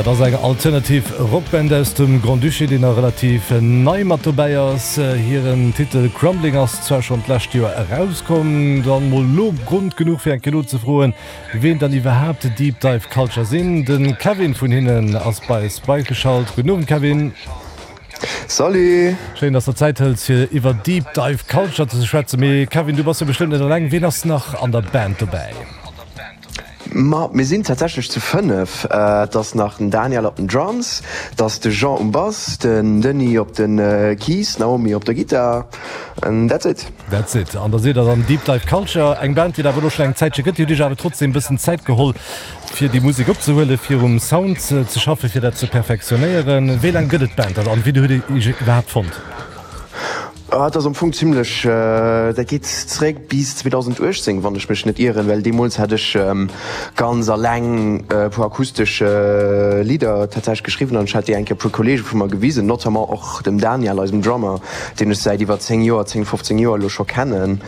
Dat ass eng alternativ Rockband aus dem Grand-Duché, déi nach relativ nei mat dobäi ass. Hiren Titel Crumbling ass zwar schonn d'lescht Joer erauskomm, dann mol lo Grond genuch fir eng Kéier nozefroen, wien dann iwwerhaapt Deep Dive Culture sinn. De Kevin vun hinnen ass bei eis beigeschalt. Gudden Owend Kevin. Salut! Schéin, dass der Zäit hëls fir iwwer Deep Dive Culture ze schwätzen. Mee Kevin, du bass jo bestëmmt net eleng. Wien ass nach an der Band dobäi? Ma mir sinn tatsächlech zu 5. Et ass nach den Daniel op den Drums, et ass de Jean um Bass, den Denis op de Keys, d'Naomi op der Gittar and that's it. That's it. An da sidd der dann Deep Dive Culture, eng Band, déi et awer elo schonn eng Zäitche gëtt. Dir hutt iech awer trotzdem e bëssen Zäit geholl, fir déi Musek opzehuelen, fir um Sound ze schaffen, fir dat ze perfektionéieren. Wéi laang gëtt et d'Band dann an wéi hutt Dir iech iwwerhaapt fonnt? Dat ass am Fong zimlech, dat geet zeréck bis 2018, wann ech mech net ieren, well deemools hat ech ganz alleng e puer akustesch Lidder tatsächlech geschriwwen an ech hat déi eng Kéier e puer Kolleege vu mer gewisen, notamment och dem Daniel, eisem Drummer, deen ech säit iwwer 10 Joer, 10, 15 Joer elo scho kennen.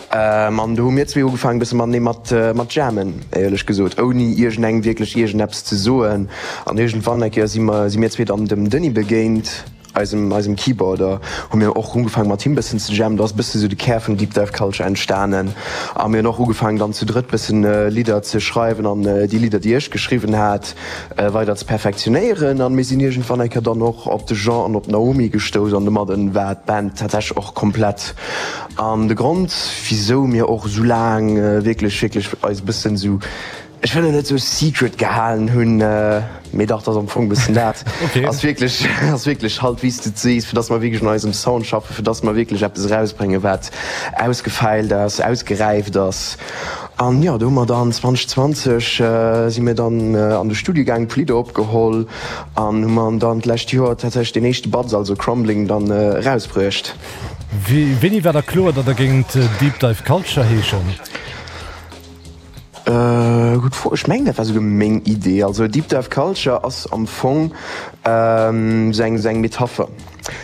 An do hu mir zwee ugefaangen e bësse matenee mat mat jammen, éierlech gesot, ouni iergendengem wierklech iergendeppes ze soen. An iergendwann eng Kéier si mer, si mir zwee dann dem Denis begéint. Eisem eisem Keyboarder, hu mir och ugefaangen mat him bëssen ze jammen. Do ass bësse sou de Kär vun Deep Dive Culture entstanen a mir hunn och ugefaangen dann zu drëtt bëssen Lidder ze schreiwen an déi Lidder déi ech geschriwwen hat weider ze perfektionéieren an mir sinn iergendwann eng Kéier dann och op de Jean an op d'Naomi gestouss an domadden war d'Band tatsächlech och komplett. An de Grond wisou mir och sou laang wierklech wierklech eis bëssen sou Ech wëll et net sou secret gehalen hunn, mee dach, 't ass am Fong bëssen dat. Ass wierklech, ass wierklech halt wéi s de et sees, fir dass mer wierklech un eisem Sound schaffen, fir dass mer wierklech eppes erausbréngen, wat ausgefeilt ass, ausgeräift ass. An jo, do hu mer dann 2020 si mir dann an de Studio gaangen, puer Lidder opgeholl an hu mer dann d'lescht Joer tatsächlech deen éischte Batz, also Crumbling, dann erausbruecht. Wéini war da kloer, datt der géingt Deep Dive Culture heeschen? Gutt Fro. Ech mengen dat war souguer meng Idee. Also Deep Dive Culture ass am Fong sou eng sou eng Metapher.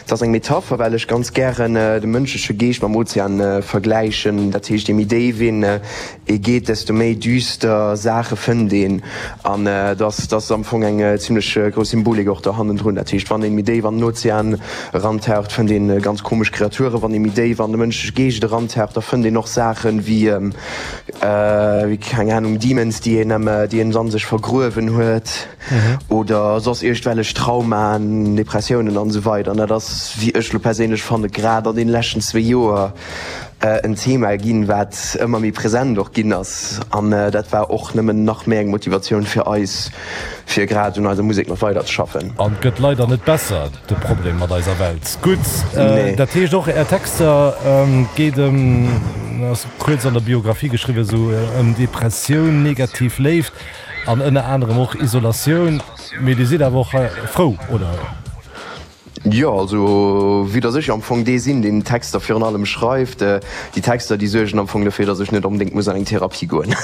Et ass eng Metapher, well ech ganz gären de mënschleche Geescht mam Ozean vergläichen. Dat heescht, je méi déif een ee geet, desto méi düster Saache fënnt een. An et ass et ass am Fong eng zimlech grouss Symbolik och do hannendrun. Dat heescht, wann een méi déif an den Ozean erantaucht, fënnt een ganz komesch Kreaturen. Wann ee méi déif an de mënschleche Geescht erantaucht, da fënnt een och Saachen wéi Wéi, keng Ahnung, Demons, déi een am, déi een an sech vergruewen huet oder soss iergdwellech Traumaen, Depressiounen an esou weider. An dat ass, wéi ech lo perséinlech fanne, grad an deene leschten zwéi Joer en Thema ginn, wat ëmmer méi present och ginn ass. An dat war och nëmmen nach méi eng Motivatioun fir eis, fir grad un eiser Musek nach weider ze schaffen. An et gëtt leider net besser, de Problem mat eiser Welt. Gutt, dat heescht och Är Texter geet ëm, ass kuerz an der Biographie geschriwwen, esou ëm Depressioun, negativ Léift an ënner anerem och Isolatioun. Mee Dir sidd awer och frou, oder? Jo, also vue dass ech am Fong dee sinn, deen d'Texter virun allem schreift, déi Texter, déi suergen am Fong dofir, dass ech net onbedéngt muss an eng Therapie goen.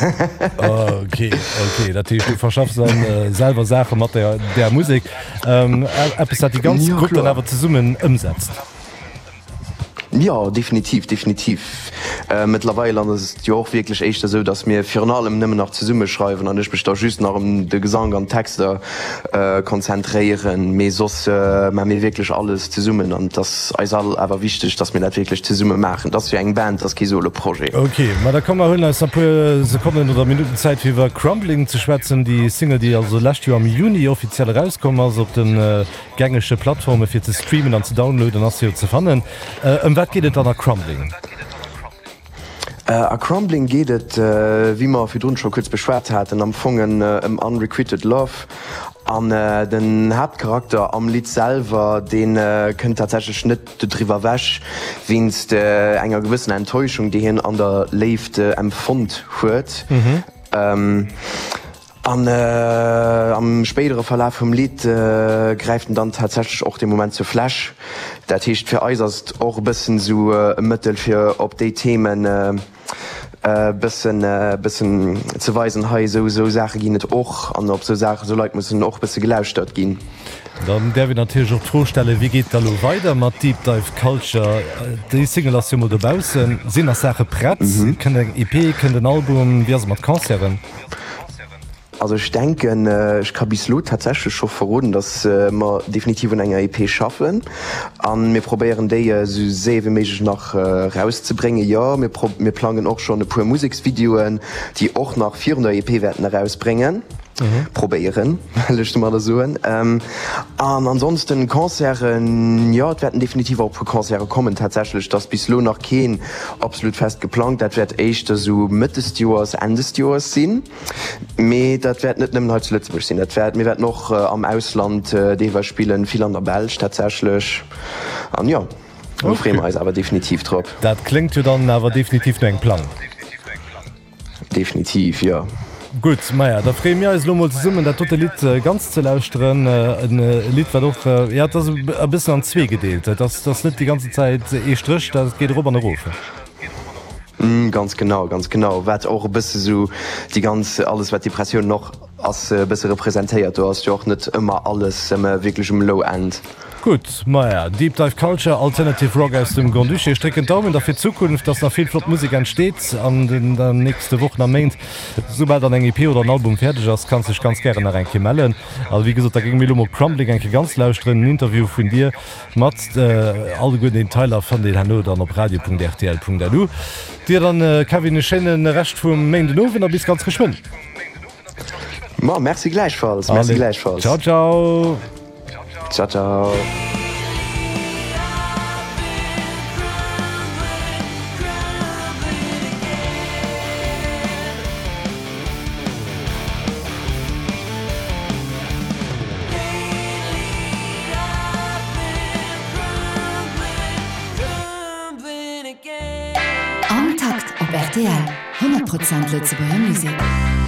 Ok, ok, dat heescht, du verschaffs dann selwer Saache mat där Musek, eppes, dat déi ganz Grupp dann awer zesummen ëmsetzt. Jo, definitiv, definitiv. Mëttlerweil ass et jo och wierklech éischter esou, datt mir virun allem nëmmen nach zesumme schreiwen an ech mech da just nach ëm de Gesank an d'Texter konzentréieren. Mee soss maache mir wierklech alles zesummen an et ass eis all awer wichteg, datt mir dat wierklech zesumme maachen. Et ass jo eng Band, et ass kee Solo-Projet. Ok, ma da komm mer huelen eis nach e puer Sekonnen oder Minutten Zäit fir iwwer Crumbling ze schwätzen, déi Single, déi also lescht Joer am Juni offiziell erauskomm ass op den Gängege Plattforme fir ze streamen an ze downloaden ass jo ze fannen. Ëm wat geet et dann a Crumbling? A Crumbling geet et, wéi mer virdrun scho kuerz beschwat haten, am Fong ëm unrequited love. An den Haaptcharakter am Lidd selwer, dee kënnt tatsächlech net dodriwwer ewech, wéinst enger gewëssener Enttäuschung, déi hien an der Léift empfonnt huet. An am spéidere Verlaf vum Lidd gräift en dann tatsächlech och dee Moment zur Fläsch. Dat heescht, fir eis ass et och e bëssen esou e Mëttel, fir op déi Themen e bëssen, bëssen ze weisen, hei esou, esou Saache ginn et och an op esou Saachen, esou Leit mussen och e bësse gelauschtert ginn. Dann däerf een natierlech och d'Fro stellen, Wéi geet et da lo weider mat Deep Dive Culture? Déi Single ass jo mol dobaussen. Sinn nach Saache prett? Kënnt eng EP? Kënnt en Album? Wéi ass et mat Concerten? Also ech denken, ech ka bis elo tatsächlech scho verroden, datt mer definitiv un enger EP schaffen a mir probéieren déi esou séier wéi méiglech nach erauszebréngen. Jo, mir mir plangen och schonn e puer Museksvideoen, déi och nach virun der EP wäerten erausbréngen, probéieren, wëll ech domadder soen. An ansonsten Concerten, jo, et wäerten definitiv och e puer Concerte kommen tatsächlech. Et ass bis elo nach keen absolut fest geplangt. Dat wäert éischter esou Mëtt des Joers, Enn des Joers sinn. Mee dat wäert net nëmmen hei zu Lëtzebuerg sinn. Dat wäert, mir wäerten och am Ausland deelweis spillen, vill an der Belsch tatsächlech. An jo, do freeë mer eis awer definitiv drop. Dat kléngt jo dann awer definitiv no engem Plang. Definitiv, jo. Gutt, maja, da freeë mir eis elo mol zesummen dat dote Lidd ganz ze lauschteren. En Lidd, wat och, jo, et ass e bëssen an zwee gedeelt. Et ass, et ass net déi ganze Zäit ee Stréch, dat geet erop an erof. Ganz genau, ganz genau. Wat och e bësse sou déi ganz, alles wat Depressioun och ass, e bësse representéiert. Do ass jo och net ëmmer alles wierklech um Low End. Gutt, maja, Deep Dive Culture, Alternative Rock aus dem Grand-Duché. Ech drécken d'Daumen da fir d'Zukunft, dass nach vill flott Musek entsteet an den nächste Wochen a Méint. Soubal dann eng EP oder en Album fäerdeg ass, kanns dech ganz gären nach eng Kéier mellen. A wéi gesot, da géinge mir elo mol Crumbling eng Kéier ganz lauschteren, en Interview vun dir mat alleguer den Detailer fannt dir herno dann op radio.rtl.lu. Dir dann, Kevin, e schéine Rescht vum Méindenowend a bis ganz geschwënn. Ma merci gläichfalls, merci Allez, gläichfalls. ciao ciao. Ciao ciao. Am Takt op rtl, 100 Prozent Lëtzebuerger Musek.